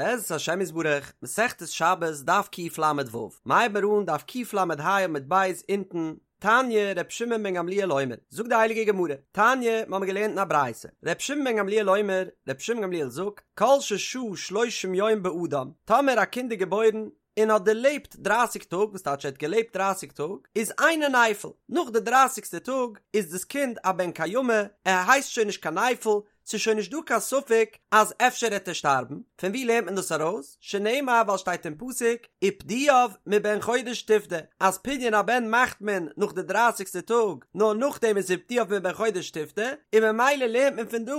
בעזרת השם יתברך, מסכת שבת דף קל"ו, מ'הייבן מיר אן דף קל"ה עמוד ב' אונטן, תניא ר' שמעון בן גמליאל אומר, זאגט די הייליגע גמרא, תניא, מ'האמיר געלערנט אין א ברייתא, ר' שמעון בן גמליאל אומר, ר' שמעון גמליאל זאגט, כל ששהה שלושים יום באדם, טאמער א קינד איז געבוירן און האט דערלעבט דרייסיג טאג, וואס טייטש ער האט געלעבט דרייסיג טאג, איז אינו נפל, נאך די דרייסיגסטע טאג איז דאס קינד א בן קיימא, ער הייסט שוין נישט קיין נפל, ס'איז שוין נישט דא קיין ספק אז אפשר העט ער שטארבן, פון ווי לערנט מען דאס ארויס? שנאמר ווייל שטייט אין פסוק ופדויו מבן חודש תפדה אז פדיון הבן מאכט מען נאך די דרייסיגסטע טאג, נאר נאכדעם איז ופדויו מבן חודש תפדה, און ממילא לערנט מען פון דא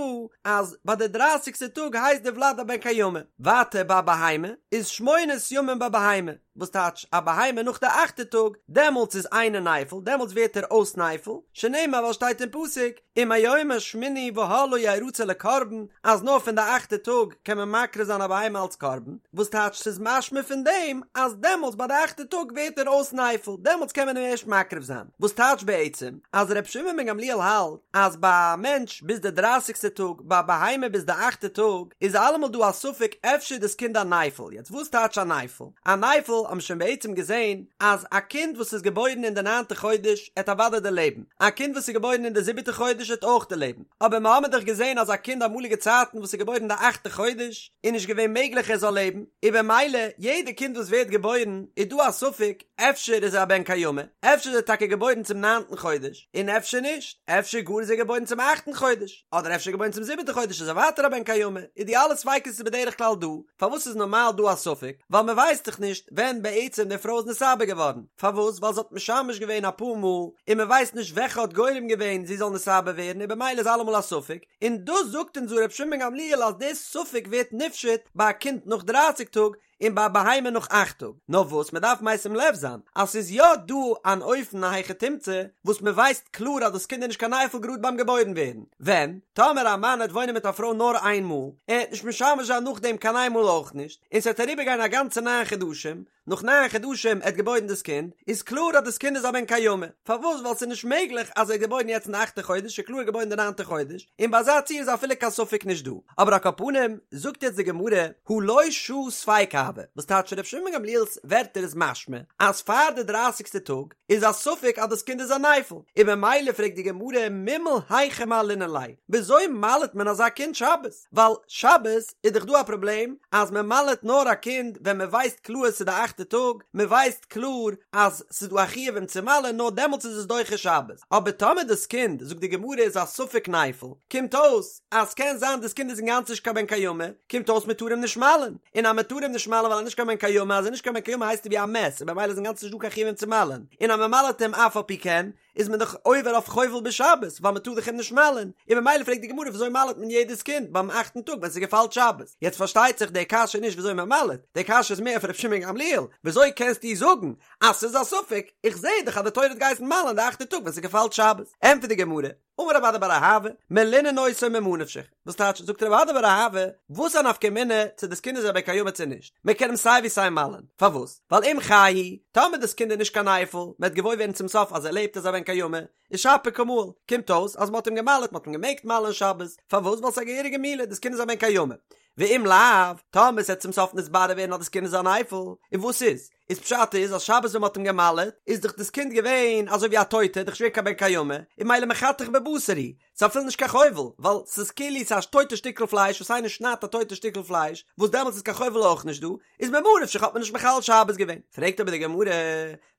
אז ביי די דרייסיגסטע טאג הייסט די ולד א בן קיימא. ווייטער ביי בהמה איז שמונת ימים בבהמה, וואס טייטש א בהמה נאך די אכטע טאג, דעמאלטס איז אינו נפל, דעמאלטס ווערט ער אויס נפל, שנאמר ווייל שטייט אין פסוק, ומיום השמיני והלאה ירצה לקרבן, אז נאר פון די אכטע טאג קען מען מקריב זיין א בהמה אלס קרבן, וואס טייטש ס'איז משמע פון דעם אז דעמאלטס ביי די אכטע טאג ווערט ער אויס נפל, דעמאלטס קען מען אים ערשט מקריב זיין, וואס טייטש בעצם אז ר' שמעון בן גמליאל האלט אז ביי א מענטש ביז די דרייסיגסטע טאג, ביי א בהמה ביז די אכטע טאג, איז אלעמאל דא א ספק אפשר איז דאס קינד א נפל, יעצט וואס טייטש א נפל? א נפל האבן שוין בעצם געזען אז א קינד וואס איז געבוירן אין די ניינטע חודש עט אוודאי דערלעבן, א קינד וואס איז געבוירן אין די זיבעטע חודש עט אויך דערלעבן, אבער מ'האמיר דאך געזען אז א קינד אמאליגע צייטן וואס איז געבוירן די אכטע חודש איז נישט געווען מעגליך ער זאל לעבן, און במילא יעדע קינד וואס ווערט געבוירן איז דא א ספק אפשר איז ער א בן קיימא, אפשר איז ער טאקע געבוירן צום ניינטן חודש, און אפשר נישט, אפשר גאר איז ער געבוירן צום אכטן חודש. אדער אפשר געבוירן צום זיבעטע חודש איז ער ווייטער א בן קיימא, איז די אלע ספיקות איז בדרך כלל דא, פארוואס איז נארמאל דא א ספק? ווייל מען ווייסט דאך נישט ווען בעצם די פרוי איז נתעבר געווארן, פארוואס? ווייל זי האט משמש געווען אפאר מאל, און מען ווייסט נישט וועלכע האט גורם געווען זי זאל נתעבר ווערן און במילא איז אלעמאל א ספק, און דאס זאגט אונז דא ר' שמעון בן גמליאל אז די ספק ווערט נפשט ביי א קינד נאך דרייסיג טאג, און ביי א בהמה נאך אכט טאג, נאר וואס מען דארף משים לב זיין אז ס'איז יא דא אן אופן א היכי תמצא וואס מען ווייסט קלאר אז דאס קינד איז נישט קיין נפל גראד ביים געבוירן ווערן, ווען? טאמער א מאן העט וואוינען מיט א פרוי נאר איין מאל, ער העט נישט משמש זיין נאכדעם קיין איין מאל אויך נישט, און ס'וועט אריבערגיין א גאנצע ניין חדשים, נאך ניין חדשים ער האט געבוירן דאס קינד, איז קלאר אז דאס קינד איז א בן קיימא, פארוואס? ווייל ס'איז נישט מעגליך אז ער איז געבוירן יעצט אין די אכטע חודש, ס'איז קלאר געבוירן די ניינטע חודש, און ביי אזא ציור איז אפילו קיין ספק נישט דא. אבער על כל פנים, זאגט יעצט די גמרא, הא לא שהה ספיקא הוי, וואס טייטש ר' שמעון בן גמליאל'ס ווערטער איז משמע אז פאר די דרייסיגסטע טאג איז א ספק אז דאס קינד איז א נפל, און ממילא פרעגט די גמרא מימהל היכי מהלינן ליה, וויאזוי מל'ט מען אזא קינד שבת? ווייל שבת איז דאך דא א פראבלעם אז מען מל'ט נאר א קינד ווען מען ווייסט קלאר ס'איז די אכטע טאג, מען ווייסט קלאר אז ס'איז דא א חיוב אים צו מל'ען נאר דעמאלטס איז עס דוחה שבת, אבער טאמער דאס קינד זאגט די גמרא איז א ספק נפל, קומט אויס אז ס'קען זיין דאס קינד איז אינגאנצן נישט קיין בן קיימא, קומט אויס מען טאר אים נישט מל'ען, און אז מען טאר אים נישט מל'ען ווייל ער איז נישט קיין בן קיימא, אז ער איז נישט קיין בן קיימא הייסט ער ווי א מת, און במילא איז אינגאנצן נישט דא קיין חיוב אים צו מל'ען, און אז מען מל'עט אים אף על פי כן, איז מען דאך עובר אויף חובל בשבת, ווייל מען טאר דאך אים נישט מל'ען, און במילא פרעגט די גמרא וויאזוי מל'עט מען יעדעס קינד ביים אכטן טאג ווען ס'געפאלט שבת, יעצט פארשטייט זיך די קשיא נישט וויאזוי מען מל'עט, די קשיא איז מער אויף ר' שמעון גמליאל, וויאזוי קענסטו זאגן אז ס'איז א ספק, איך זע דאך אז די תורה האט געהייסן מל'ען די אכטע טאג ווען ס'געפאלט שבת, ענטפערט די גמרא, אמר רב אדא בר אהבה, מלינן אותו ממה נפשך, וואס טייטש, זאגט רב אדא בר אהבה, וואס א נפקא מינה צו דאס קינד איז א בן קיימא צו נישט, מען קען אים סיי ווי סיי מל'ען, פארוואס? ווייל אם חי הוא, טאמער דאס קינד איז נישט קיין נפל, מען וועט געוואויר ווערן צום סוף אז ער לעבט איז א בן קיימא, איז שפיר קא מהיל, קומט אויס אז מען האט אים געמל'עט, מען האט אים געמעגט מל'ען שבת, פארוואס? ווייל ס'איז א געהעריגע מילה, דאס קינד איז א בן קיימא. ואם לאו, טאמער ס'וועט צום סוף נתברר ווערן אז דאס קינד איז א נפל, און וואס איז? איז פשט איז אז שבת ווען מ'האט אים גע'מל'עט איז דאך דאס קינד געווען אזוי ווי א טויטע, דאך נישט געווען קיין בן קיימא, און ממילא מחתך בבשר הוא, ס'איז אפילו נישט קיין חובל, ווייל ס'איז כאילו ס'איז א טויטע שטיקל פלייש וואס איינער שניידט א טויטע שטיקל פלייש, וואס דעמאלטס איז קיין חובל אויך נישט דא, איז ממה נפשך האט מען נישט מחלל שבת געווען. פרעגט אבער די גמרא,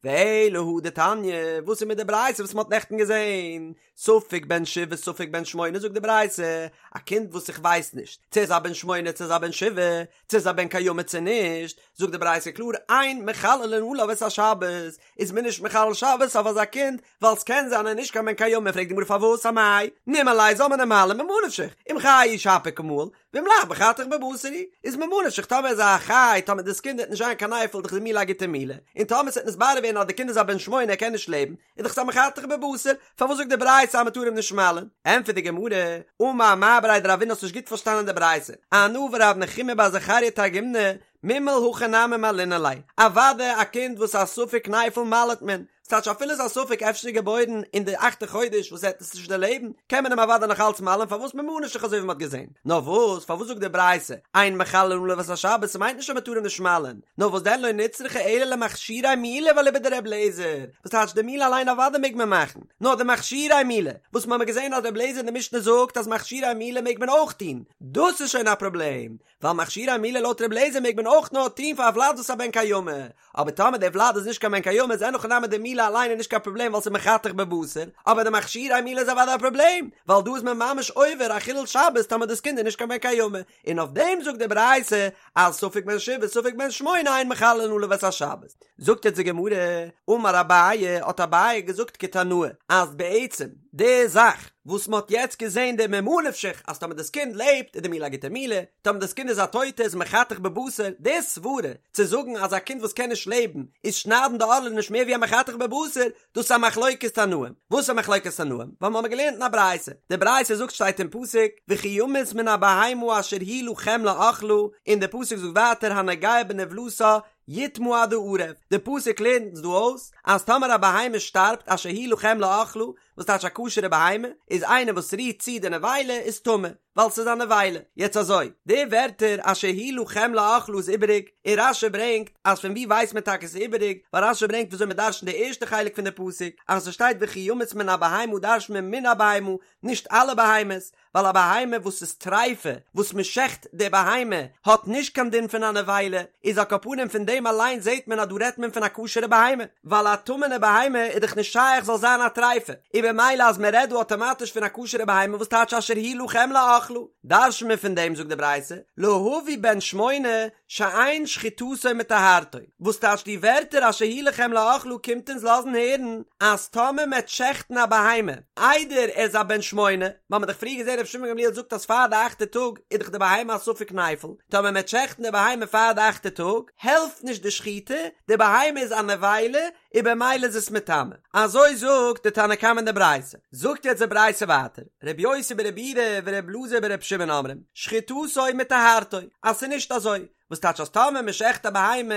ואלא הא דתניא, וואס איז מיט די ברייתא וואס מ'האט נעכטן געזען, ספק בן שבעה ספק בן שמונה זאגט די ברייתא, א קינד וואס איך ווייס נישט צו ער איז א בן שמונה צו ער איז א בן שבעה, צו ער איז א בן קיימא צו נישט, זאגט די ברייתא קלאר אין מחללין עליו את השבת, איז מען נישט מחלל שבת אויף אזא קינד, ווייל ס'קען זיין ער איז נישט קיין בן קיימא, פרעגט די גמרא פארוואס אמאי נימהליה זאל מען אים מל'ען ממה נפשך, אם חי הוא שפיר קא מהיל, ואם לאו מחתך בבשר הוא, איז ממה נפשך טאמער איז ער א חי, טאמער דאס קינד וועט נישט זיין קיין נפל דאך איז די מילה א גוטע מילה, און טאמער ס'וועט נתברר ווערן אז די קינד איז א בן שמונה ער קען נישט לעבן, איז דאך ס'א מחתך בבשר, פארוואס זאגט די ברייתא אז מ'טאר אים נישט מל'ען? ענטפערט די גמרא, אמר מר בריה דרבינא האסט נישט גוט פארשטאנען די ברייתא, אנא ורב נחומי בר זכריה תרגימנא, מימהל הכי נמי מהלינן ליה, אוודאי א קינד וואס איז א ספק נפל מל'עט מען, ס'טייטש אפילו ס'איז א ספק אפשר איז געבוירן אין די אכטע חודש וואס ער וועט עס נישט דערלעבן, קען מען אים אוודאי נאך אלץ מל'ען פארוואס ממה נפשך אזוי ווי מ'האט געזען. נאר וואס, פארוואס זאגט די ברייתא, אין מחללין עליו את השבת, ס'מיינט נישט אז מ'טאר אים נישט מל'ען, נאר וואס דען לא נצרכה אלא למכשירי מילה ואליבא דר' אליעזר, וואס טייטש די מילה אליין אוודאי מעג מען מאכן, נאר די מכשירי מילה, וואס מ'האמיר געזען אז ר' אליעזר אין די משנה זאגט אז מכשירי מילה מעג מען אויך טון, דאס איז שוין א פראבלעם, ווייל מכשירי מילה לויט ר' אליעזר מעג מען אויך נאר טון פאר א ולד וואס איז א בן קיימא, אבער טאמער דער ולד איז נישט קיין בן קיימא איז אין הכי נמי די מילה אליין איז נישט קיין פראבלעם ווייל ס'איז מחתך בבשר, אבער די מכשירי מילה איז אוודאי א פראבלעם, ווייל דא איז מען ממש עובר א חילול שבת טאמער דאס קינד איז נישט קיין בן קיימא, און אויף דעם זאגט די ברייתא אז ספק בן שבעה ספק בן שמונה אין מחללין עליו את השבת. זאגט יעצט די גמרא, אמר אביי, האט אביי געזאגט כתנאי, אז בעצם די זאך וואס מען האט יעצט געזען די ממה נפשך אז טאמער דאס קינד לעבט איז די מילה א גוטע מילה, טאמער דאס קינד איז א טויטע איז מחתך בבשר, די סברה צו זאגן אז א קינד וואס קען נישט לעבן איז שניידן די ערלה נישט מער ווי א מחתך בבשר, דאס איז א מחלוקת תנאים. וואס איז א מחלוקת תנאים? ווייל מ'האמיר געלערנט אין א ברייתא. די ברייתא זאגט שטייט אין פסוק וכי ימות מן הבהמה אשר היא לכם לאכלה, און די פסוק זאגט ווייטער הנוגע בנבלתה יטמא עד הערב. די פסוק לערנט אונז דא אויס אז טאמער א בהמה שטארבט אשר היא לכם לאכלה, וואס טייטש א כשר'ע בהמה, איז איינער וואס רירט צו די נבילה איז טמא. ווייל ס'איז א נבילה. יעצט אזוי, די ווערטער אשר היא לכם לאכלה איז איבעריג, און רש"י ברענגט אז פון וואו ווייסט מען טאקע ס'איז איבעריג, ווייל רש"י ברענגט וויאזוי מ'דרש'נט די ערשטע חלק פון די פסוק, אז ס'שטייט וכי ימות מן הבהמה דרש'נט מען מן הבהמה, נישט אלע בהמות, ווייל א בהמה וואס איז טריפה, וואס מ'שעכט די בהמה, האט נישט קיין דין פון א נבילה, איז על כל פנים פון דעם אליין זעט מען אז דא רעדט מען פון א כשר'ע בהמה. ווייל א טמא'נע בהמה איז דאך נישט שייך זאל זיין א טריפה, און במילא אז מען רעדט דא אטאמאטיש פון א כשר'ע בהמה וואס טייטש אשר היא לכם לאכלה, דרש'ן מיר פון דעם זאגט די ברייתא, להביא בן שמונה שאין שחיטתו מטהרתו, וואס טייטש די ווערטער אשר היא לכם לאכלה קומט אונז לאזן הערן אז טאמער מ'עט שעכטן א בהמה איידער ער איז א בן שמונה, ווייל מ'האט דאך פריער געזען רבי שמעון גמליאל זאגט אז פאר די אכטע טאג איז דאך די בהמה א ספק נפל, טאמער מ'עט שעכטן די בהמה פאר די אכטע טאג העלפט נישט די שחיטה, די בהמה איז א נבילה און במילא איז עס מטמא. אזוי זאגט די תנא קמא אין די ברייתא. זאגט יעצט די ברייתא ווייטער, רבי יוסי ברבי יהודה ורבי אלעזר ברבי שמעון אומרים, שחיטתו מטהרתו, אז ס'איז נישט אזוי, וואס טייטש אז טאמער מען שעכט א בהמה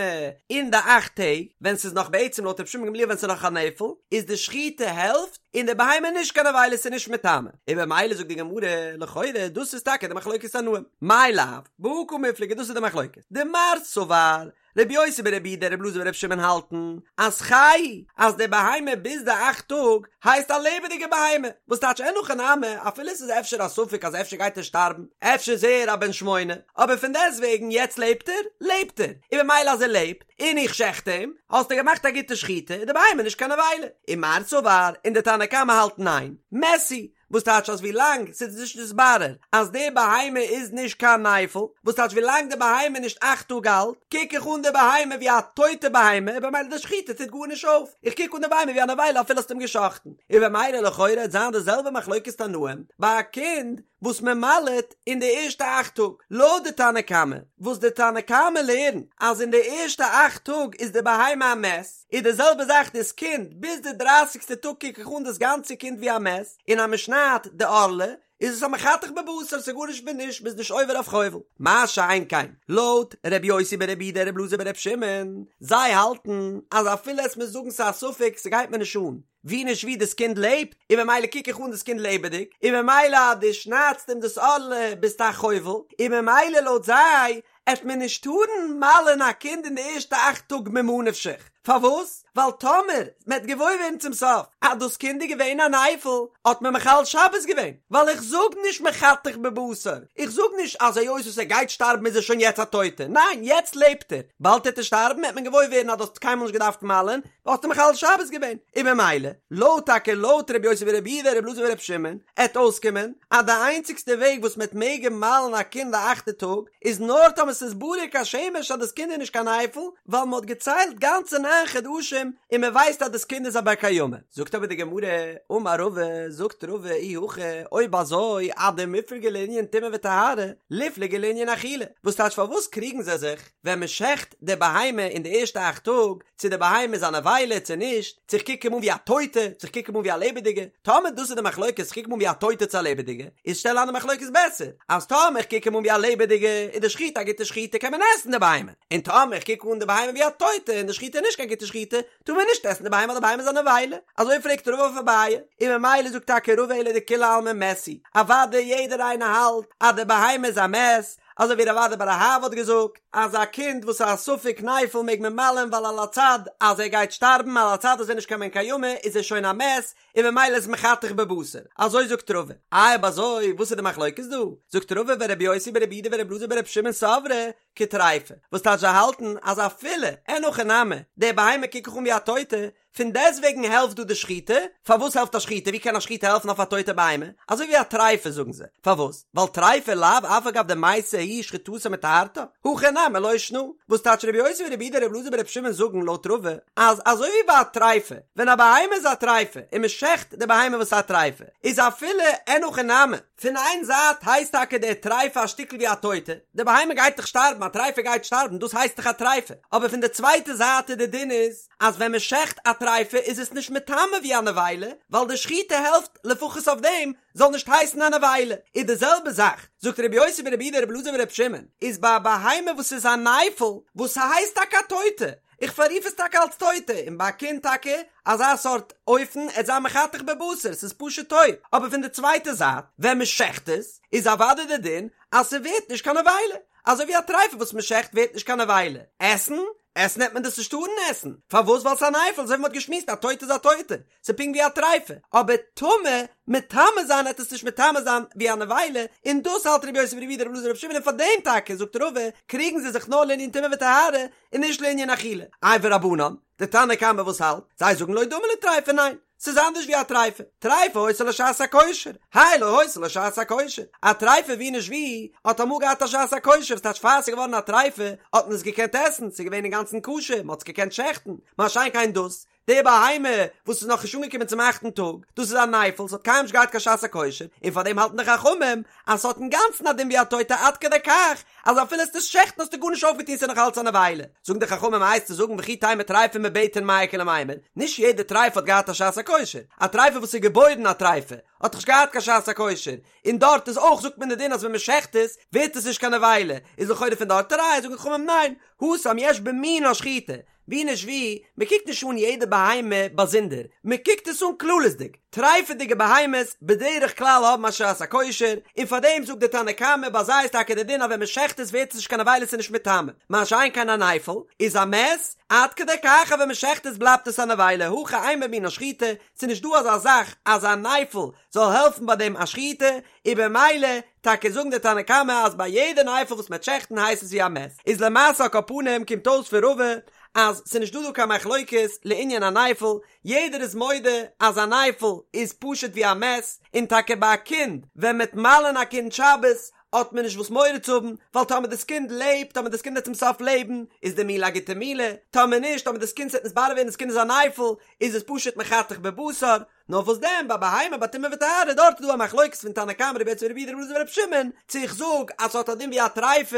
אין די אכט טעג, ווען ס'איז נאך בעצם לויט רבי שמעון גמליאל ווען ס'איז נאך א נפל, איז די שחיטה העלפט, און די בהמה איז נישט קיין נבילה ס'איז נישט מטמא. און במילא זאגט די גמרא, לכאורה דאס איז טאקע די מחלוקת תנאים. מאי לאו, בהא קמיפלגי דאס איז די מחלוקת. דמר סבר, רבי יוסי ברבי יהודה רבי אלעזר ברבי שמעון האלטן אז חי אז די בהמה ביז די אכט טאג הייסט א לעבעדיגע בהמה, וואס טייטש אין הכי נמי אפילו עס איז אפשר א ספק אז אפשר גייט ער שטארבן, אפשר איז ער א בן שמונה, אבער פון דעסטוועגן יעצט לעבט ער, לעבט ער, און במילא אז ער לעבט, און איך שעכט אים, האסטו געמאכט א גוטע שחיטה, איז די בהמה נישט קיין נבילה. ומר סבר, און די תנא קמא האלט ניין, מת הוא, וואס טייטש אז ווילאנג ס'איז נישט נתברר אז די בהמה איז נישט קיין נפל, וואס טייטש ווילאנג די בהמה איז נישט אכט טאג אלט, קוק איך אן די בהמה ווי א טויטע בהמה, און במילא די שחיטה טוט גארנישט אויף, איך קוק אן די בהמה ווי א נבילה אפילו האסט אים גע'שחט'ן, און במילא לכאורה וועט זיין די זעלבע מחלוקת תנאים ביי א קינד וואס מען מל'עט אין די ערשטע אכט טאג, לויט די תנא קמא, וואס די תנא קמא לערנט אז אין די ערשטע אכט טאג איז די בהמה א מת, איז די זעלבע זאך דאס קינד, ביז די דרייסיגסטע טאג קוק איך אן דאס גאנצע קינד ווי א מת, און אז מען שניידט די ערלה איז עס א מחתך בבשר, ס'איז גארנישט מיט נישט, מ'איז נישט עובר אויף חובל. מה שאין כן, לויט ר' יוסי ברבי יהודה ר' אלעזר בר' שמעון, זיי האלטן אז אפילו עס מיר זאגן ס'איז א ספק ס'גייט מיר נישט אן, ווי נישט ווי דאס קינד לעבט, און ממילא קוק איך אן דאס קינד לעבעדיג, און ממילא אז דו שניידסט אים דאס ערלה ביסטו א חובל, און ממילא לויט זיי עט מען נישט טארן מל'ען א קינד אין די ערשטע אכט טאג ממה נפשך, פארוואס? ווייל טאמער מ'עט געוואויר ווערן צום סוף אז דאס קינד איז געווען א נפל האט מען מחלל שבת געווען, ווייל איך זאג נישט מחתך בבשר, איך זאג נישט אז היות וואס ער גייט שטארבן איז ער שוין יעצט א טויטע, ניין יעצט לעבט ער, באלד העט ער שטארבן העט מען געוואויר ווערן אז דו האסט קיינמאל נישט געדארפט מל'ען, האסטו מחלל שבת געווען, און ממילא, לויט טאקע לויט רבי יוסי ברבי יהודה רבי אלעזר ברבי שמעון, עט אויסקומען אז די איינציגסטע וועג וואס מ'עט מעגן מל'ן א קינד די אכטע טאג, איז נאר טאמער ס'איז ברור כשמש אז דאס קינד איז נישט קיין נפל, ווייל מ'האט געציילט גאנצע ניין חדשים און מ'ווייסט אז דאס קינד איז א בר קיימא. זאגט אבער די גמרא, אמר רבא, זאגט רבא, אי הכי, אויב אזוי, אדמיפלגי לענין טומאה וטהרה, ליפלגו לענין אכילה, וואס טייטש פארוואס קריגן זיי זיך ווען מ'שעכט די בהמה אין די ערשטע אכט טאג, צו די בהמה איז א נבילה צו נישט, צו איך קוק אים אן ווי א טויטע, צו איך קוק אים אן ווי א לעבעדיגע, טאמער דאס איז די מחלוקת, איך קוק אים אן ווי א טויטע צו א לעבעדיגע, איז שטעל איין די מחלוקת בעסער, אז טאמער איך קוק אים אן ווי א לעבעדיגע, איז די שחיטה א גוטע שחיטה קען מען עסן די בהמה, און טאמער איך קוק אן די בהמה ווי א טויטע און די שחיטה איז נישט קיין. קיין גוטע שחיטה, טאר מען נישט עסן די בהמה ווייל די בהמה איז א נבילה, אזוי פרעגט רבא אויף אביי, און ממילא זאגט טאקע רבא אלא דכולי עלמא מת הוא, אוודאי יעדער איינער האלט אז די בהמה איז א מת, אזוי ווי רב אדא בר אהבה האט געזאגט אז א קינד וואס איז א ספק נפל מעג מען מל'ען ווייל על הצד אז ער גייט שטארבן על הצד אז ער איז נישט קיין בן קיימא איז ער שוין א מת און ממילא איז מחתך בבשר, אזוי זאגט רבא. איי אויב אזוי וואס איז די מחלוקת דא? זאגט רבא ורבי יוסי ברבי יהודה ורבי אלעזר ברבי שמעון סברי כטריפה, וואס טייטש זיי האלטן אז אפילו אין הכי נמי די בהמה קוק איך אן ווי א טויטע, פון דעסטוועגן העלפט דא די שחיטה, פארוואס העלפט א שחיטה, ווי קען א שחיטה העלפן אויף א טויטע בהמה, אזוי ווי א טריפה זאגן זיי, פארוואס? ווייל טריפה לאו אף על גב דמתה היא שחיטתה מטהרתה, הכא נמי לא שנא, וואס טייטש רבי יוסי ברבי יהודה רבי אלעזר ברבי שמעון זאגן לויט רבא אז אזוי ווי ביי א טריפה, ווען א בהמה איז א טריפה און מען שעכט די בהמה וואס איז א טריפה, איז אפילו אין הכי נמי, פון איין זייט הייסט טאקע די טריפה א שטיקל ווי א טויטע, די בהמה גייט דאך שטארבן, א טריפה גייט שטארבן, דאס הייסט דאך א טריפה, אבער פון די צווייטע זייט איז די דין איז אז ווען מען שעכט א טריפה איז עס נישט מטמא ווי א נבילה, ווייל די שחיטה העלפט לפחות אויף דעם זאל נישט הייסן א נבילה, איז די זעלבע זאך, זאגט רבי יוסי ברבי יהודה רבי אלעזר ברבי שמעון, איז ביי א בהמה וואס איז א נפל, וואס ס'הייסט טאקע א טויטע, איך פאררוף עס טאקע אלס טויטע, און ביי א קינד טאקע אזא סארט אופן, עט זיין מחתך בבשר, ס'איז פשוט טויט, אבער פון די צווייטע זייט, ווען מ'שעכט עס, איז אוודאי די דין אז ס'ווערט נישט קיין נבילה, אזוי ווי א טריפה וואס מ'שעכט ווערט נישט קיין נבילה, עסן? עסן העט מען דאס נישט טארן עסן, פארוואס? ווייל ס'איז א נפל, אזוי ווי מ'האט געשמועסט א טויטע איז א טויטע, ס'איז פונקט ווי א טריפה, אבער טמא, מטמא זיין העט עס נישט מטמא זיין ווי א נבילה, און דאס האלט רבי יוסי ברבי יהודה רבי אלעזר ברבי שמעון און פאר דעם טאקע זאגט רבא קריגן זיי זיך נאר לענין טומאה וטהרה און נישט לענין אכילה. איי ורבנן, די תנא קמא וואס האלט? זיי זאגן לא דמי לטריפה ניין, ס'איז אנדערש ווי א טריפה, טריפה היתה לה שעת הכושר, האי לא היתה לה שעת הכושר, א טריפה ווי נישט ווי האט אמאל געהאט א שעת הכושר, וואס טייטש פאר ס'איז געווארן א טריפה האט מען עס געקענט עסן, ס'איז געווען אינגאנצן כשר, מ'האט עס געקענט שעכטן, מה שאין כן דאס, די בהמה וואס איז נאכנישט אנגעקומען צום אכטן טאג, דאס איז א נפל, ס'האט קיינמאל נישט געהאט קיין שעת הכושר, און פאר דעם האלטן די חכמים אז ס'האט אינגאנצן א דין ווי א טויטע עד כדי כך אז אפילו עסט עס שעכטן האסטו גארנישט אויפגעטון ס'איז נאך אלץ א נבילה. זאגן די חכמים הייסט צו זאגן וכי תימא טריפה מבטן מאי איכא למימר, נישט יעדע טריפה האט געהאט א שעת הכושר, א טריפה וואס איז געבוירן א טריפה האט דאך נישט געהאט קיין שעת הכושר, און דארט איז אויך זאגט מען די דין אז ווען מ'שעכט עס ווערט עס נישט קיין נבילה, איז לכאורה פון דארט א ראיה, זאגן די חכמים ניין, התם יש במינה שחיטה, ווי נישט ווי, מען קוקט נישט אן יעדע בהמה באזונדער, מען קוקט עס אן כללית'דיג. טרייפעדיגע בהמות בדרך כלל האבן א שעת הכושר, און פאר דעם זאגט די תנא קמא ביי זיי איז טאקע די דין אז ווען מען שעכט עס ווערט עס נישט קיין נבילה ס'איז נישט מטמא, מה שאין כן א נפל איז א מת, עד כדי כך אז ווען מען שעכט עס בלייבט עס א נבילה, הכא אין במינה שחיטה, ס'איז נישט דא אזא זאך אז א נפל זאל העלפן ביי דעם א שחיטה, און במילא טאקע זאגן די תנא קמא אז ביי יעדע נפל וואס מ'עט שעכטן הייסט עס ווי א מת, איז למעשה על כל פנים קומט אויס פון רבא אז ס'איז נישט דא דא קיין מחלוקת לעניין א נפל, יעדער איז מודה אז א נפל איז פשוט ווי א מת, און טאקע ביי א קינד ווען מ'עט מל'ען א קינד שבת האט מען נישט וואס מורא צו האבן, ווייל טאמער דאס קינד לעבט, טאמער דאס קינד וועט צום סוף לעבן, איז די מילה א גוטע מילה, טאמער נישט, טאמער דאס קינד ס'וועט נתברר ווערן דאס קינד איז א נפל, איז עס פשוט מחתך בבשר, נאר וואס דען ביי בהמה ביי טומאה וטהרה דארט איז דא א מחלוקת פון תנא קמא רבי יוסי ברבי יהודה רבי אלעזר ברבי שמעון צו איך זאג אז ס'האט א דין ווי א טריפה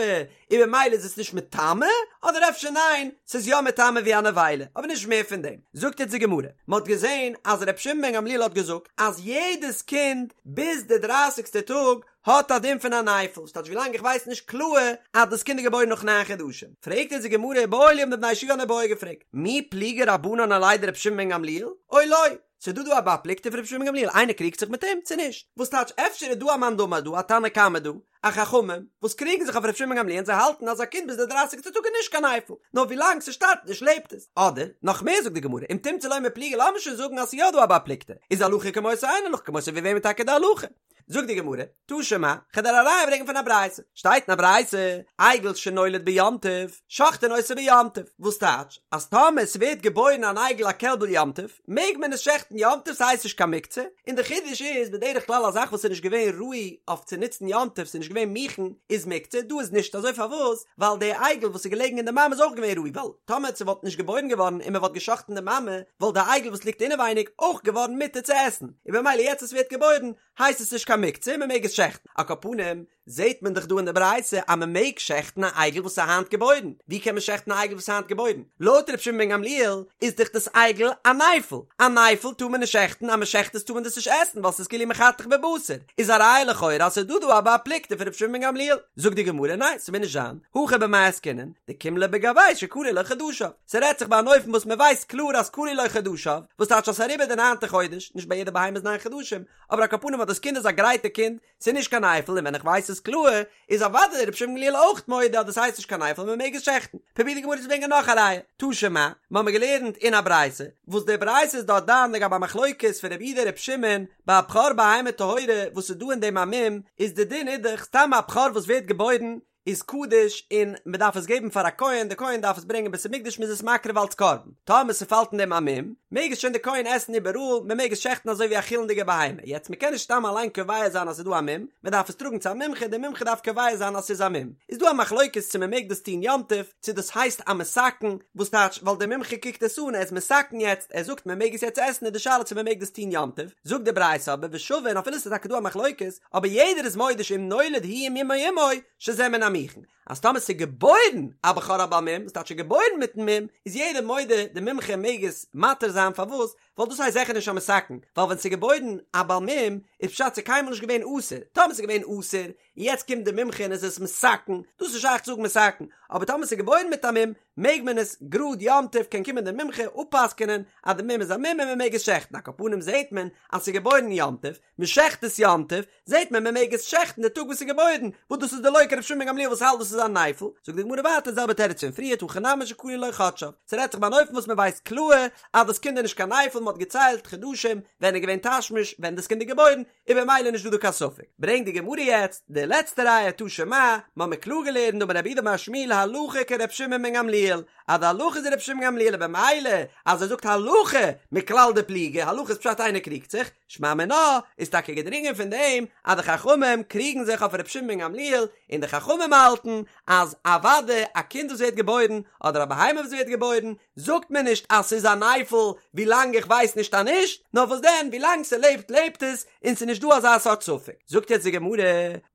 און במילא איז עס נישט מטמא אדער אפשר ניין ס'איז יא מטמא ווי א נבילה אבער נישט מער פון דעם זאגט יעצט די גמרא מ'האט געזען אז רבי שמעון בן גמליאל האט געזאגט אז יעדעס קינד ביז די דרייסיגסטע טאג האט א דין פון א נפל, ס'טייטש ווילאנג איך ווייס נישט קלאר אז דאס קינד איז געבוירן נאך ניין חדשים. פרעגט אונז די גמרא איבעיא להו האבן די בני ישיבה אן איבעיא געפרעגט, מי פליגי רבנן עליה דרבי שמעון בן גמליאל, או לא? ס'איז דא דא א בר פלוגתא פון רבי שמעון בן גמליאל, איינער קריגט זיך מיט אים צו נישט? וואס טייטש אפשר איז דא א מאן דאמר דא, א תנא קמא דא, א חכמים, וואס קריגן זיך אויף רבי שמעון בן גמליאל און זיי האלטן אז א קינד ביז די דרייסיגסטע טאג איז נישט קיין נפל, נאר ווילאנג ס'שטארבט נישט לעבט עס. אדער, נאך מער זאגט די גמרא, אם תמצא לומר פליגי לאמיר שוין זאגן אז ס'איז יא דא א בר פלוגתא, איז הלכה כמותו אין הלכה כמותו ווי וועמען טאקע די הלכה? זאגט די גמרא, תא שמע, כ'וועל דיר א ראיה ברענגען פון א ברייתא, שטייט אין א ברייתא, עגל שנולד ביום טוב, שוחטין אותו ביום טוב, וואס טייטש, אז טאמער ס'ווערט געבוירן אן עגל א קעלבל יום טוב, מעג מען עס שעכטן יום טוב ס'הייסט נישט קיין מוקצה, און די חידוש איז, בדרך כלל א זאך וואס איז נישט געווען ראוי אויף צו נוצן יום טוב, ס'איז נישט געווען מוכן, איז מוקצה, דא איז נישט אזוי פארוואס? ווייל די עגל וואס איז געלעגן אין די מאמע איז אויך געווען ראוי, ווייל טאמער ס'וואלט נישט געבוירן געווארן און מ'וואלט געשאכטן די מאמע, וואלט די עגל וואס ליגט אינעווייניג אויך געווארן מותר צו עסן, און במילא יעצט עס ווערט געבוירן הייסט עס נישט קיין מוקצה און מ'מעג עס שעכטן. על כל פנים, זעהט מען דאך דא אין די ברייתא אז מען מעג שעכטן א עגל וואס איז היינט געבוירן, ווי קען מען שעכטן א עגל וואס איז היינט געבוירן? לויט ר' שמעון בן גמליאל איז דאך דאס עגל א נפל, א נפל טאר מען נישט שעכטן, אז מען שעכט עס טאר מען דאס נישט עסן ווייל ס'איז כאילו מחתך בבשר, איז א ראיה לכאורה אז ס'איז דא דא א בר פלוגתא פון ר' שמעון בן גמליאל, זאגט די גמרא ניין ס'מוז נישט זיין, הכא במאי עסקינן, דקים ליה בגויה שכלו לו חדשיו, ס'רעדט זיך ביי אן אופן וואס מען ווייסט קלאר אז כלו לו חדשיו, וואס טייטש אז ס'איז אריבער די ניינטע חודש, נישט ביי יעדע בהמה איז ניין חדשים, אבער על כל פנים אז דאס קינד איז א גרייטע קינד, ס'איז נישט קיין נפל און ווען איך ווייס עס קלאר, איז אוודאי רבי שמעון גמליאל אויך מודה אז דאס הייסט נישט קיין נפל און מ'מעג עס שעכטן. פרובירט די גמרא צו ברענגען נאך א ראיה, תא שמע, מ'האמיר געלערנט אין א ברייתא, וואס די ברייתא איז דארט דן לגבי א מחלוקת פון רבי יהודה רבי שמעון ביי א בכור בהמה טהורה וואס איז דא אין דעם א מום, איז די דין איז דאך סתם א בכור וואס ווערט געבוירן איז קדוש און מען דארף עס געבן פאר א כהן, די כהן דארף עס ברענגען אין בית המקדש מען איז עס מקריב אלץ קרבן, טאמער ס'פאלט אין דעם א מום, מעג עס שוין די כהן עסן איבעראל, מען מעג עס שעכטן אזוי ווי א חולין'דיגע בהמה, יעצט מען קען נישט סתם אליין קובע זיין אז ס'איז דא א מום, מען דארף עס טראגן צו א מומחה, דער מומחה דארף קובע זיין אז ס'איז א מום, איז דא א מחלוקת צו מען מעג דאס טון יום טוב, צו דאס הייסט א מתקן, וואס טייטש ווייל דער מומחה קוקט עס אן, ער איז מתקן יעצט, ער זאגט מען מעג עס יעצט עסן איז די שאלה צו מען מעג דאס טון יום טוב, זאגט די ברייתא אבער ושווין אפילו ס'איז טאקע דא א מחלוקת, אבער יעדער איז מודה שאם נולד הוא עם מומו עמו, שזה מן המוכן, אז טאמער ס'איז געבוירן א בכור א בעל מום, וואס טייטש געבוירן מיטן מום, איז יעדער מודה די מומחה מעג עס מתיר זיין, פארוואס? ווייל דאס הייסט זיכער נישט א מתקן, ווייל ווען ס'איז געבוירן א בעל מום, איז פשט ס'איז קיינמאל נישט געווען אסור, טאמער ס'איז געווען אסור, און יעצט קומט די מומחה און איז עס מתקן, דאס איז שייך צו זאגן מתקן, אבער טאמער ס'איז געבוירן מיט א מום, מעג מען עס גראד יום טוב קען קומען די מומחה אפפסק'ענען אז די מום איז א מום און מ'מעג עס שעכטן, על כל פנים זעהט מען אז ס'איז געבוירן יום טוב, מ'שעכט עס יום טוב, זעט מען מען מעג עס שעכטן די טאג וואס איז געבוירן, וואס דאס איז דלא כרבי שמעון בן גמליאל וואס האלט דאס איז א נפל, זאגט די גמרא ווייטער די זעלבע תירוץ פון פריערט הכא נמי שכלו לו חדשיו, ס'רעדט זיך ביי אן אופן וואס מען ווייסט קלאר אז דאס קינד איז נישט קיין נפל, מען האט געציילט חדשים ווען איז געווען תשמיש ווען דאס קינד איז געבוירן, איז במילא נישט דא דא קיין ספק. ברענגט די גמרא יעצט די לעצטע ראיה תא שמע, מען האט מיר קלאר געלערנט דאמר רב יהודה אמר שמואל הלכה כרבי שמעון בן גמליאל, אז די הלכה איז רבי שמעון גמליאל און במילא אז ער זאגט הלכה מכלל דפליגי, הלכה איז פשט איינער קריגט זיך, שמע מינה איז טאקע געדרינגען פון דעם אז די חכמים קריגן זיך אויף ר' שמעון בן גמליאל און די חכמים האלטן אז אוודאי א קינד וואס ווערט געבוירן אדער א בהמה וואס ווערט געבוירן זאגט מען נישט אז ס'איז א נפל ווילאנג איך ווייס נישט אז נישט, נאר וואס דען ווילאנג ס'לעבט לעבט עס און ס'איז נישט דא אזא סארט ספק. זאגט יעצט די גמרא,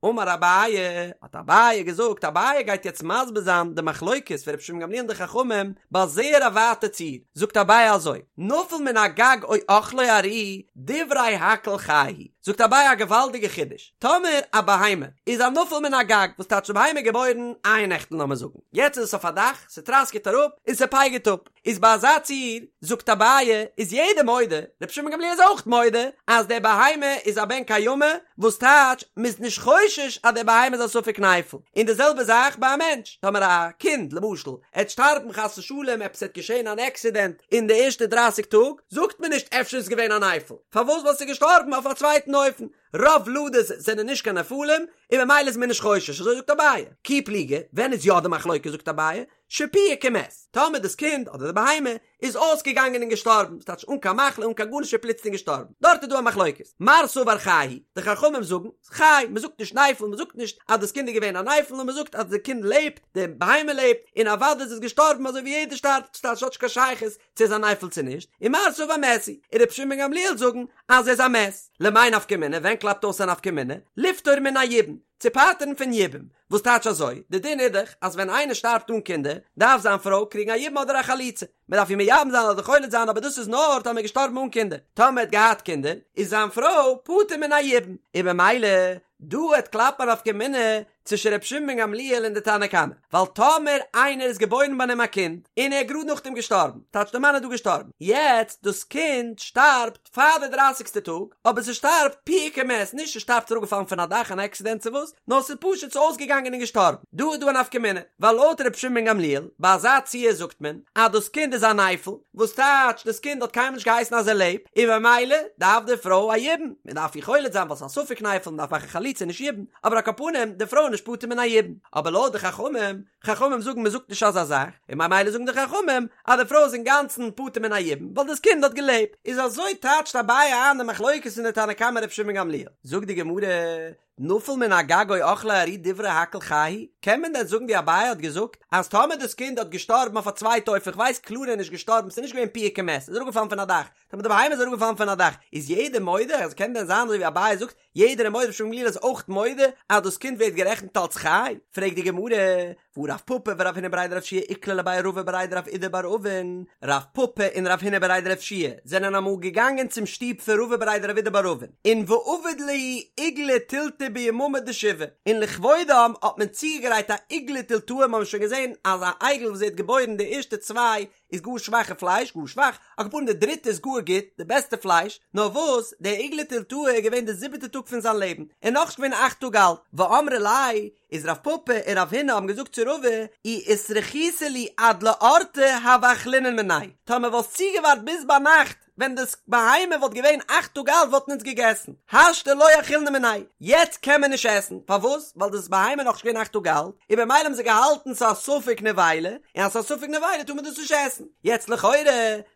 אמר אביי, האט אביי געזאגט, אביי גייט יעצט מסביר זיין די מחלוקת פון ר' שמעון גמליאל און די חכמים ביי זייער א ווייטע ציור, זאגט אביי אזוי, נפל מן הגג או אכלו ארי, דברי הכל חי הוא, זאגט אביי א געוואלדיגע חידוש, טאמער א בהמה איז א נפל מן הגג, וואס טייטש די בהמה איז געבוירן אייערנעכטן לאמיר זאגן, יעצט איז עס אויף א דאך, ס'טראסקעט אראפ און ס'פייגערט אפ, איז ביי אזא ציור, זאגט אביי, איז יעדער מודה, רבי שמעון גמליאל איז אויך מודה, אז די בהמה איז א בן קיימא, וואס טייטש, מ'איז נישט חושש אז די בהמה איז א ספק נפל, און די זעלבע זאך ביי א מענטש, טאמער א קינד, למשל, עט שטארבן חס ושלום, עפעס עט געשען אן עקסידענט אין די ערשטע דרייסיג טאג, זאגט מען נישט אפשר איז געווען א נפל, פארוואס ווייל ס'איז געשטארבן אויף א צווייטן אופן, רוב ולדות זענען נישט קיין נפלים, און ממילא איז מען נישט חושש, אזוי זאגט אביי. כי פליגי, ווען איז יא די מחלוקת זאגט אביי, שפיהק ומת, טאמער דאס קינד אדער די בהמה איז אויסגעגאנגען און געשטארבן, ס'טייטש אן קיין מחלה אן קיין גארנישט איז פלוצלינג געשטארבן, דארט איז דא א מחלוקת, מר סבר חי הוא, די חכמים זאגן, חי, מען זאגט נישט נפל, מען זאגט נישט אז דאס קינד איז געווען א נפל, נאר מען זאגט אז די קינד לעבט, די בהמה לעבט, און אוודאי איז עס געשטארבן אזוי ווי יעדער שטארבט, ס'טייטש ס'האט נישט קיין שייכות צו איז א נפל צו נישט, און מר סבר מת הוא, און רבי שמעון בן גמליאל זאגן אז ער איז א מת. למאי נפקא מינה, ווען קלאפט אויס א נפקא מינה? לפטור מן היבום, צו פטר'ן פון יבום, וואס טייטש אזוי? די דין איז דאך אז ווען איינער שטארבט אן קינדער, דארף זיין פרוי קריגן א יבום אדער א חליצה. מען דארף איר מייבם זיין אדער חולץ זיין אבער דאס איז נאר טאמער געשטארבן אן קינדער. טאמער האט געהאט קינדער, איז זיין פרוי פטור מן היבום. און במילא, דא העט קלאפן א נפקא מינה צווישן רבי שמעון בן גמליאל און די תנא קמא. ווייל טאמער איינער איז געבוירן ביי אים א קינד, און ער איז גראד נאכדעם געשטארבן, טייטש די מאן איז דא געשטארבן, יעצט דאס קינד שטארבט, פאר די דרייסיגסטע טאג, אבער ס'שטארבט פיהק ומת, נישט ס'שטארבט אראפגעפאלן פון א דאך אן עקסידענט צו וואס, נאר ס'איז פשוט ס'איז אויסגעגאנגען און געשטארבן. דא איז דא א נפקא מינה, ווייל לויט ר' שמעון בן גמליאל, ביי אזא ציור זאגט מען אז דאס קינד איז א נפל, וואס טייטש דאס קינד האט קיינמאל נישט געהייסן אז ער לעבט, און במילא דארף די פרוי א יבום, מען דארף איר חולץ זיין ווייל ס'איז א ספק נפל, מען דארף מאכן חליצה נישט יבום, אבער על כל פנים די פרוי איז נישט פטור מן היבום. אבער לויט די חכמים, חכמים זאגן מען זאגט נישט אזא זאך, און ממילא זאגן די חכמים אז די פרוי איז אינגאנצן פטור מן היבום ווייל דאס קינד האט געלעבט, איז אזוי טייטשט אביי איין די מחלוקת פון די תנא קמא רבי שמעון גמליאל. זאגט די גמרא, נפל מן הגג או אכלו ארי דברי הכל חי הוא? קען מען דען זאגן ווי אביי האט געזאגט אז טאמער דאס קינד האט געשטארבן אויף א צווייטע אופן כ'ווייס קלאר ער איז נישט געשטארבן ס'איז נישט געווען פיהק ומת ס'איז אראפגעפאלן פון א דאך טאמער די בהמה איז אראפגעפאלן פון א דאך איז יעדער מודה אז קען דען זיין אזוי ווי אביי זאגט יעדער איז מודה ר' שמעון גמליאל איז אויך מודה אז דאס קינד ווערט גערעכנט אלס חי? פרעגט די גמרא, והא רב פפא ורב הונא בריה דרב יהושע איקלעו לבי רבא בריה דרב אידי בר אבין, רב פפא און רב הונא בריה דרב יהושע זענען אמאל געגאנגען צום שטוב פון רבא בריה דרב אידי בר אבין, און ועבוד להו עיגלא תילתא ביממא דשבעה, און לכבודם האט מען צוגעגרייט א עיגלא תילתא, מ'האבן שוין געזען אז א עגל וואס ווערט געבוירן די ערשטע צוויי איז גאר שוואכע פלייש, גאר שוואך, על כל פנים די דריטע איז גאר גוט, די בעסטע פלייש, נאר וואס, דער עיגלא תילתא איז געווען די זיבעטע טאג פון זיין לעבן, און נאכנישט געווען אכט טאג אלט, ואמרי ליה, איז רב פפא און רב הונא האבן געזאגט צו רבא, אי אתרחיתו להו עד לאורתא הוה אכלינן מיניה, טאמער וואלסט צוגעווארט ביז ביינאכט, ווען דאס בהמה וואלט געווען אכט טאג אלט וואלטן אונז געגעסן, השתא לא אכילנא מיניה, יעצט קען מען נישט עסן, פארוואס? ווייל דאס בהמה איז נאכנישט געווען אכט טאג אלט, און במילא האבן זיי געהאלטן ס'איז א ספק נבילה, און אז ס'איז א ספק נבילה טאר מען דאס נישט עסן. יעצט לכאורה,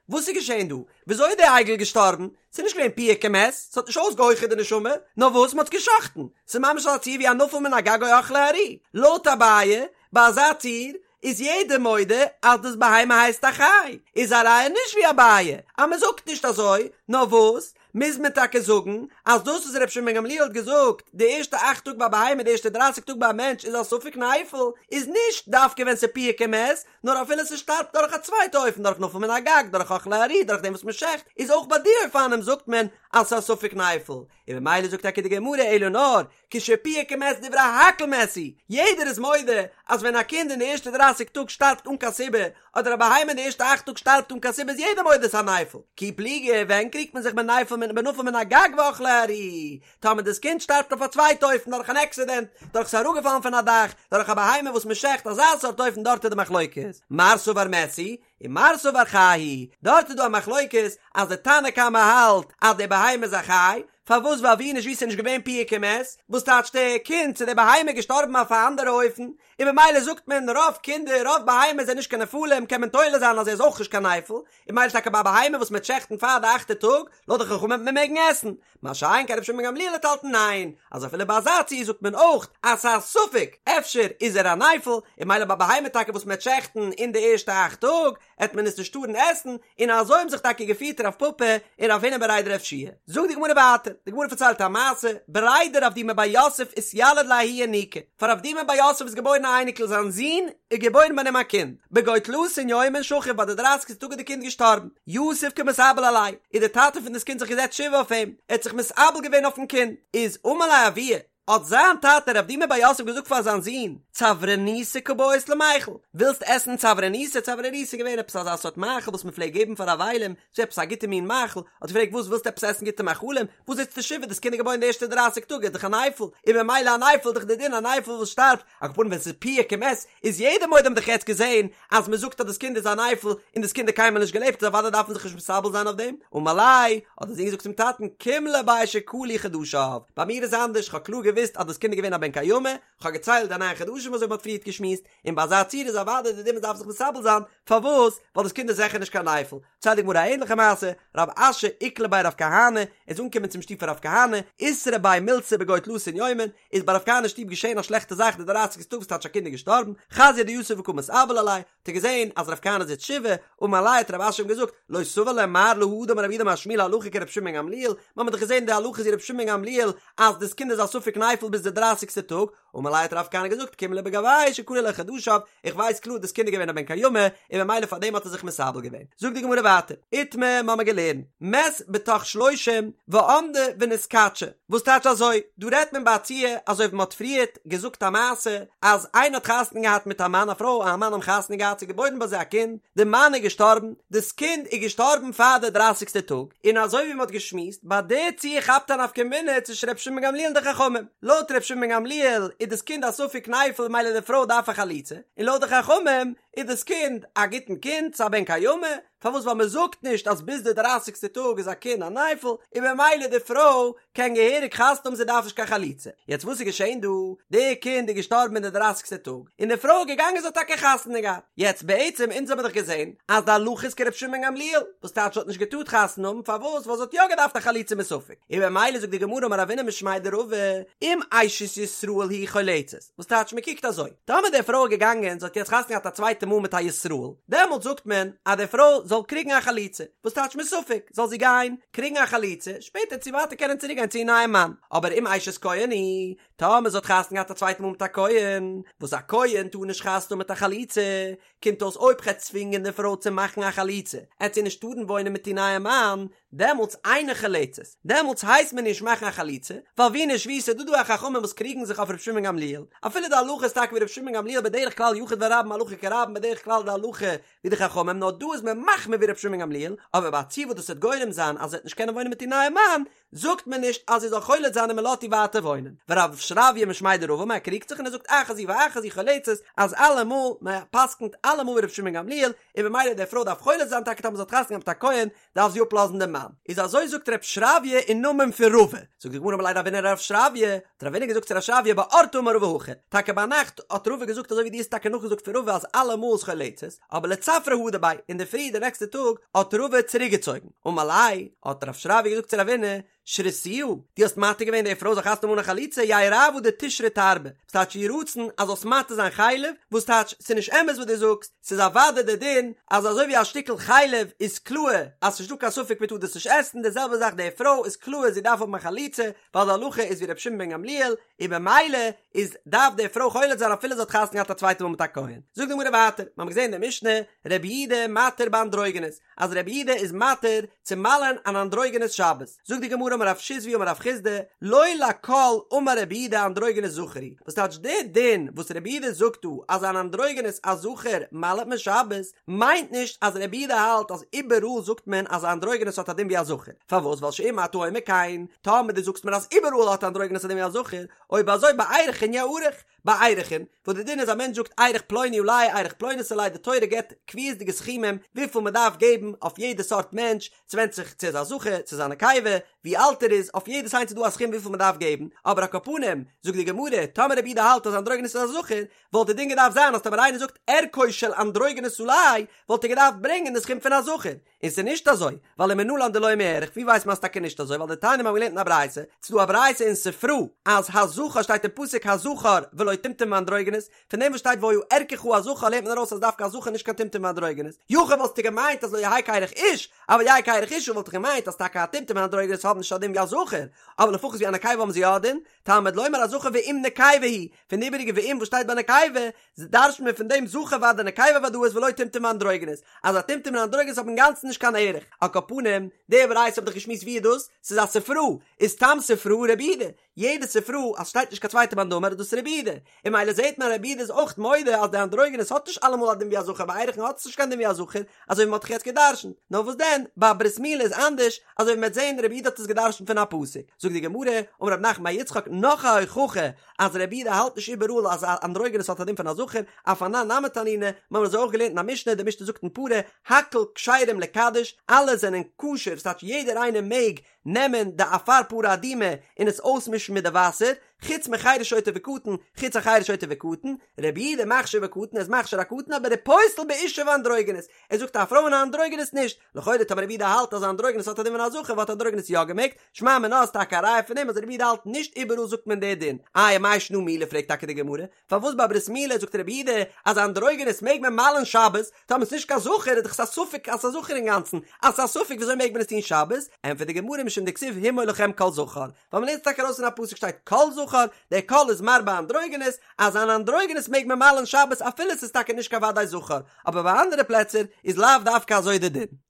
וואס איז געשען דא? וויאזוי איז דער עגל געשטארבן? ס'איז נישט געווען פיהק ומת, ס'האט נישט אויסגעהויכערט די נשמה, נאר וואס? מ'האט עס גע'שחט'ן, ס'איז ממש אזא ציור ווי א נפל מן הגג או אכלו ארי. לויט אביי, ביי אזא ציור, איז יעדער מודה אז דאס בהמה הייסט א חי, איז א ראיה נישט ווי אביי אז מען זאגט נישט אזוי, נאר וואס מוז מען טאקע זאגן אז דאס וואס רבי שמעון בן גמליאל האט געזאגט די ערשטע אכט טאג ביי א בהמה די ערשטע דרייסיג טאג ביי א מענטש איז א ספק נפל איז נישט דווקא ווען ס'פיהק ומת נאר אפילו ס'שטארבט דורך א צווייטע אופן דורך נפל מן הגג דורך אכלו ארי דורך דעם וואס מען שעכט איז אויך ביי די אופנים זאגט מען אז ס'איז א ספק נפל און ממילא זאגט טאקע די גמרא אלא נאר כשפיהק ומת דברי הכל מת הוא, יעדער איז מודה אז ווען א קינד אין די ערשטע דרייסיג טאג שטארבט אן קיין סיבה, אדער א בהמה אין די ערשטע אכט טאג שטארבט אן קיין סיבה איז יעדער מודה ס'איז א נפל. כי פליגי, ווען קריגט מען זיך בנפל מן בנפל מן הגג ואכלו ארי? טאמער דאס קינד שטארבט אויף א צווייטע אופן דורך אן עקסידענט, דורך ס'איז אראפגעפאלן פון א דאך, דורך א בהמה וואס מ'שעכט, אזא סארט אופן דארט איז די מחלוקת. מר סבר מת הוא, און מר סבר חי הוא, דארט איז דא א מחלוקת אז די תנא קמא האלט אז די בהמה איז א חי, פארוואס ווייל ווי נישט ווי ס'איז נישט געווען פיהק ומת, וואס טייטש די קינד צו די בהמה איז געשטארבן אויף א אנדערע אופן, און במילא זאגט מען רוב קינדער רוב בהמות זענען נישט קיין נפלים קען מען תולה זיין אז ער איז אויך נישט קיין נפל, און במילא טאקע ביי א בהמה וואס מ'וועט שעכטן פאר די אכטע טאג, לויט די חכמים וועט מען מעגן עסן, מה שאין כן רבי שמעון בן גמליאל האט האלטן ניין, אז אפילו ביי אזא ציור זאגט מען אויך אז ס'איז א ספק אפשר איז ער א נפל, און במילא ביי בהמה טאקע וואס מ'עט שעכטן אין די ערשטע אכט טאג, עט מען עס נישט טארן עסן, און אזוי האבן זיך טאקע געפירט רב פפא און רב הונא בריה דרב יהושע. זאגט די גמרא ווייטער, די גמרא פארציילט א מעשה, בריה דרב דימי בר יוסף אתיליד ליה ההוא ינוקא, פאר רב דימי בר יוסף איז געבוירן א אייניקל זיין זון איז געבוירן ביי אים א קינד, בגו תלתין יומין שכיב ביי די דרייסיגסטע טאג איז די קינד געשטארבן, יתיב קמתאבל עליה, איז די טאטע פון דאס קינד זיך געזעצט שבעה אויף אים, ער האט זיך מתאבל געווען אויפן קינד, איז אמר ליה אבוה, האט זיין טאטע רב דימי בר יוסף געזאגט פאר זיין זון, צברניתא קבעית למיכל, ווילסט עסן צברניתא, צברניתא איז געווען עפעס אזא סארט מאכל וואס מען פלעגט געבן פאר אבלים, ס'איז עפעס א גוטע מין מאכל, האט ער געפרעגט וואס ווילסטו עפעס עסן גוטע מאכלים, וואס זיצסטו שבעה, דאס קינד איז געבוירן די ערשטע דרייסיג טאג איז דאך א נפל, און ממילא א נפל איז דאך די דין א נפל וואס שטארבט, על כל פנים ווען ס'איז פיהק ומת איז יעדער מודה האבן דאך יעצט געזעהן אז מ'זאגט אז דאס קינד איז א נפל און דאס קינד האט קיינמאל נישט געלעבט איז אוודאי דארף מען זיך נישט מתאבל זיין אויף דעם, אמר ליה, האט דער זון געזאגט צום טאטן קים לי ביה שכלו חדשיו, ביי מיר איז אנדערש כ'האב קלאר געוואוסט אז דאס קינד איז געווען א בן קיימא, כ'האב געציילט די ניין חדשים אזוי ווי מ'האט פריערט געשמועסט, און ביי אזא ציור איז אוודאי די דין מ'דארף זיך מתאבל זיין, פארוואס? ווייל דאס קינד איז זיכער נישט קיין נפל. ציילט די גמרא א ענליכע מעשה, רב אשי איקלע בי רב כהנא, איז אנגעקומען צום שטוב פון רב כהנא, איתרע ביה מילתא בגו תלתין יומין, איז ביי רב כהנא שטוב געשען א שלעכטע זאך די דרייסיגסטע טאג וואס טייטש א קינד איז געשטארבן, חזייה דיתיב וקא מתאבל עליה, האט ער געזען אז רב כהנא זיצט שבעה, אמר ליה האט רב אשי אים געזאגט, לא סבר לה מר להא דאמר רב יהודה אמר שמואל הלכה כרבי שמעון בן גמליאל, מיר האבן דאך געזען די הלכה איז ווי רבי שמעון בן גמליאל אז דאס קינד איז א ספק נפל ביז די דרייסיגסטע טאג, אמר ליה האט רב כהנא געזאגט קים לי בגויה שכלו ליה חדשיו, איך ווייס קלאר דאס קינד איז געווען א בן קיימא, און ממילא פאר דעם האט ער זיך מתאבל געווען. זאגט די גמרא ווייטער, איתמר מ'האמיר געלערנט, מת בתוך שלושים ועמדה ונתקדשה, וואס טייטש אזוי, דא רעדט מען ביי א ציור אזוי ווי מ'האט פריערט געזאגט א מעשה אז איינער האט חתונה געהאט מיט א מאן א פרוי און א מאן האבן חתונה געהאט ס'איז געבוירן ביי זיי א קינד, די מאן איז געשטארבן, דאס קינד איז געשטארבן פאר די דרייסיגסטע טאג, און אזוי ווי מ'האט געשמועסט, ביי די ציור כאפט א נפקא מינה צווישן ר' שמעון בן גמליאל און די חכמים, לויט ר' שמעון בן גמליאל איז דאס קינד א ספק נפל ממילא די פרוי דארף א חליצה, און לויט די חכמים איז דאס קינד א גוטן קינד, ס'איז א בן קיימא, פארוואס ווייל מען זאגט נישט אז ביז די דרייסיגסטע טאג איז א קינד א נפל, און במילא די פרוי קען געהעריג חתונה האבן זי דארף נישט קיין חליצה. יעצט וואס איז געשען דא? די קינד איז געשטארבן אין די דרייסיגסטע טאג, און די פרוי איז געגאנגען זי האט טאקע חתונה געהאט. יעצט בעצם אונז האבן דאך געזען אז די הלכה איז כר' שמעון גמליאל, וואס טייטש זי האט נישט געטארט חתונה האבן, פארוואס? ווייל זי האט יא געדארפט א חליצה מספק, און במילא זאגט די גמרא אמר רבינא משמיה דרבא, אם אשת ישראל היא חולצת, וואס טייטש מען קוקט אזוי, טאמער די פרוי איז געגאנגען זי האט יעצט חתונה געהאט א צווייטע מאל מיט א ישראל, דעמאלט זאגט מען אז די פרוי זאל קריגן א חליצה, וואס טייטש מספק, זאל זי גיין קריגן א חליצה, שפעטער צו ווייטער קענען צוריק גיין צו איר נייעם מאן, אבער אם אשת כהן היא, טאמער זי האט חתונה געהאט א צווייטע מאל מיט א כהן, וואס א כהן טאר נישט חתונה האבן מיט א חלוצה, קומט אויס אויב כ'עט צווינגען די פרוי צו מאכן א חליצה, עט זי נישט טארן וואוינען מיט איר נייעם מאן, דעמאלטס אינה חולצת, דעמאלטס הייסט מען נישט מאכן א חליצה, ווייל ווי נישט ווי ס'איז דא דא א חכמים וואס קריגן זיך אויף ר' שמעון גמליאל, אפילו די הלכה איז טאקע ווי ר' שמעון גמליאל בדרך כלל יחיד ורבים הלכה כרבים בדרך כלל די הלכה ווי די חכמים נאר דא איז מען מחמיר ווי ר' שמעון גמליאל, אבער ביי א ציור וואס דאס וועט גורם זיין אז זי וועט נישט קענען וואוינען מיט איר נייעם מאן, זאגט מען נישט אז זי זאל חולץ זיין און מען לאזט איר ווייטער וואוינען. ורב שרביא משמיה דרבא אמר ער קריגט זיך און ער זאגט אחת זו ואחת זו חולצת אז אלעמאל מען פסקנט אלעמאל ווי ר' שמעון גמליאל און במילא די פרוי דארף חולץ זיין טאקע טאמער זי האט חתונה געהאט מיט א כהן דארף זי אפלאזן דעם מאן. איז אזוי זאגט רב שרביא אין נאמען פון רבא. זאגט די גמרא אמר ליה רבינא לרב שרביא, האט רבינא געזאגט צו רב שרביא באורתא אמר רבא הכי, טאקע ביינאכט האט רבא געזאגט אזוי ווי דו האסט טאקע נאכגעזאגט פון רבא אז אלעמאל איז חולצת, אבער לצפרא הדר ביה, אינדערפרי די נעקסטע טאג האט רבא צוריקגעצויגן. אמר ליה, האט רב שרביא געזאגט צו רבינא, שריתוה, דו האסט מתיר געווען די פרוי זאל חתונה האבן אן א חליצה, יהא רעוא דתשרי תרבא, וואס טייטש יהי רצון אז זאלסט מתיר זיין חלב, וואס טייטש ס'איז נישט אמת וואס דו זאגסט, ס'איז אוודאי די דין אז אזוי ווי א שטיקל חלב איז קלאר אז ס'נישט דא קיין ספק מ'טאר דאס נישט עסן, די זעלבע זאך די פרוי איז קלאר זי דארף האבן א חליצה, ווייל די הלכה איז ווי רבי שמעון בן גמליאל, און במילא איז דארף די פרוי חולץ זיין אפילו זי האט חתונה געהאט א צווייטע מאל מיט א כהן. זאגט די גמרא ווייטער, מ'האמיר געזען אין די משנה, רבי יהודה מתיר באנדרוגינוס, אז רבי יהודה איז מתיר צו מל'ען אן אנדרוגינוס שבת, זאגט די גמרא אמר רב שיזבי אמר רב חסדא, לא לכל אמר רבי יהודה אנדרוגינוס זכר הוא, וואס טייטש די דין וואס רבי יהודה זאגט דא אז אן אנדרוגינוס א זכר מל'ט מען שבת, מיינט נישט אז רבי יהודה האלט אז איבעראל זאגט מען אז א אנדרוגינוס האט א דין ווי א זכר, פארוואס ווייל שאם אתה אומר כן, טאמער דו זאגסט מיר אז איבעראל האט אנדרוגינוס א דין ווי א זכר, אויב אזוי בערכין יערך, בערכין, וואס די דין איז א מענטש זאגט ערך פלוני עלי ערך פלונית עלי די תורה געבט קביעות'דיגע סכומים וויפיל מען דארף געבן אויף יעדע סארט מענטש, ס'ווענדט זיך צו ער איז א זכר צו ס'איז א נקבה, ווי אלט ער איז, אויף יעדעס איינס איז דא א סכום וויפיל מען דארף געבן, אבער על כל פנים, זאגט די גמרא, טאמער רבי יהודה האלט אז אנדרוגינוס איז א זכר, וואלט די דין געדארפט זיין אז טאמער איינער זאגט ערכו של אנדרוגינוס עלי, וואלט ער געדארפט ברענגען די סכום פון א זכר, און ס'איז נישט אזוי, ווייל ומנלן דלא מיערך, ווי ווייסט מען אז טאקע נישט אזוי, ווייל דתניא מיר האבן געלערנט אין א ברייתא, ס'איז דא א ברייתא אין ספרא, אז הזכר שטייט אין פסוק הזכר ולא טומטום ואנדרוגינוס, פון דעם וואס שטייט והיה ערכך הזכר לערנט מען ארויס אז דווקא א זכר נישט קיין טומטום ואנדרוגינוס, יכול וואלסטו געמיינט אז לא יהא כערך איש, אבל יהא כערך אשה וואלט איך געמיינט אז טאקע א טומטום און אנדרוגינוס האבן נישט א דין ווי א זכר, אבער לפחות ווי א נקבה האבן זיי יא א דין, תלמוד לומר הזכר ואם נקבה היא, פון די איבעריגע ואם וואס שטייט ביי נקבה, דרש'נט מען פון דעם זכר ודאי נקבה ודאית ולא טומטום ואנדרוגינוס, אז א טומטום און אנדרוגינוס האבן אינגאנצן נישט קיין ערך. על כל פנים, די ברייתא האב דאך געשמועסט ווי איז דאס? ס'איז א ספרא, איז סתם ספרא רבי יהודה, יעדע ספרא אז שטייט נישט קיין צווייטע מאן דאמר איז דאס רבי יהודה, און ממילא זעהט מען אז רבי יהודה איז אויך מודה אז די אנדרוגינוס האט נישט אלעמאל א דין ווי א זכר ביי ערכין האט עס נישט קיין דין ווי א זכר, אזוי ווי מ'האט דאך יעצט גע'דרש'נט, נאר וואס דען ביי ברית מילה איז אנדערש, אזוי ווי מ'וועט זעהן רבי יהודה האט עס גע'דרש'נט פון א פסוק, זאגט די גמרא, אמר רב נחמן בר יצחק נאך א הוכחה אז רבי יהודה האלט נישט איבעראל אז א אנדרוגינוס האט א דין פון א זכר, אף אנן נמי תנינא, מ'האמיר אזוי אויך געלערנט אין א משנה, די משנה זאגט אין פרה, הכל כשרים לקדש, אלע זענען כשר, ס'טייטש יעדער איינער מעג נעמען די אפר פרה אדומה און עס אויסמישן מיט די וואסער, חוץ מחרש שוטה וקטן, חוץ א חרש שוטה וקטן, רבי יהודה מכשיר בקטן, ער איז מכשיר א קטן אבער ופוסל באשה ואנדרוגינוס, ער זאגט א פרוי און א אנדרוגינוס נישט, לכאורה טאמער רבי יהודה האלט אז א אנדרוגינוס האט א דין פון א זכר וואלט אנדרוגינוס יא געמעגט, שמע מינה איז טאקע א ראיה פון דעם אז רבי יהודה האלט נישט איבעראל זאגט מען די דין, איי מאי שנא מילה פרעגט טאקע די גמרא, פארוואס ביי ברית מילה זאגט רבי יהודה אז אנדרוגינוס מעג מען מל'ן שבת, טאמער ס'נישט קיין זכר איז דאך עס א ספק אז ס'איז א זכר אינגאנצן, אז ס'איז א ספק וויאזוי מעג מען עס טון שבת, ענטפערט די גמרא משום דכתיב המול לכם כל זכר, ווייל מ'לערנט עס טאקע ארויס פון א פסוק שטייט כל זכר, דער כל איז מרבה אנדרוגינוס, אז אן אנדרוגינוס מעג מען מל'ן שבת אפילו ס'איז טאקע נישט קיין וודאי זכר, אבער ביי אנדערע פלעצער איז לאו דווקא אזוי די דין.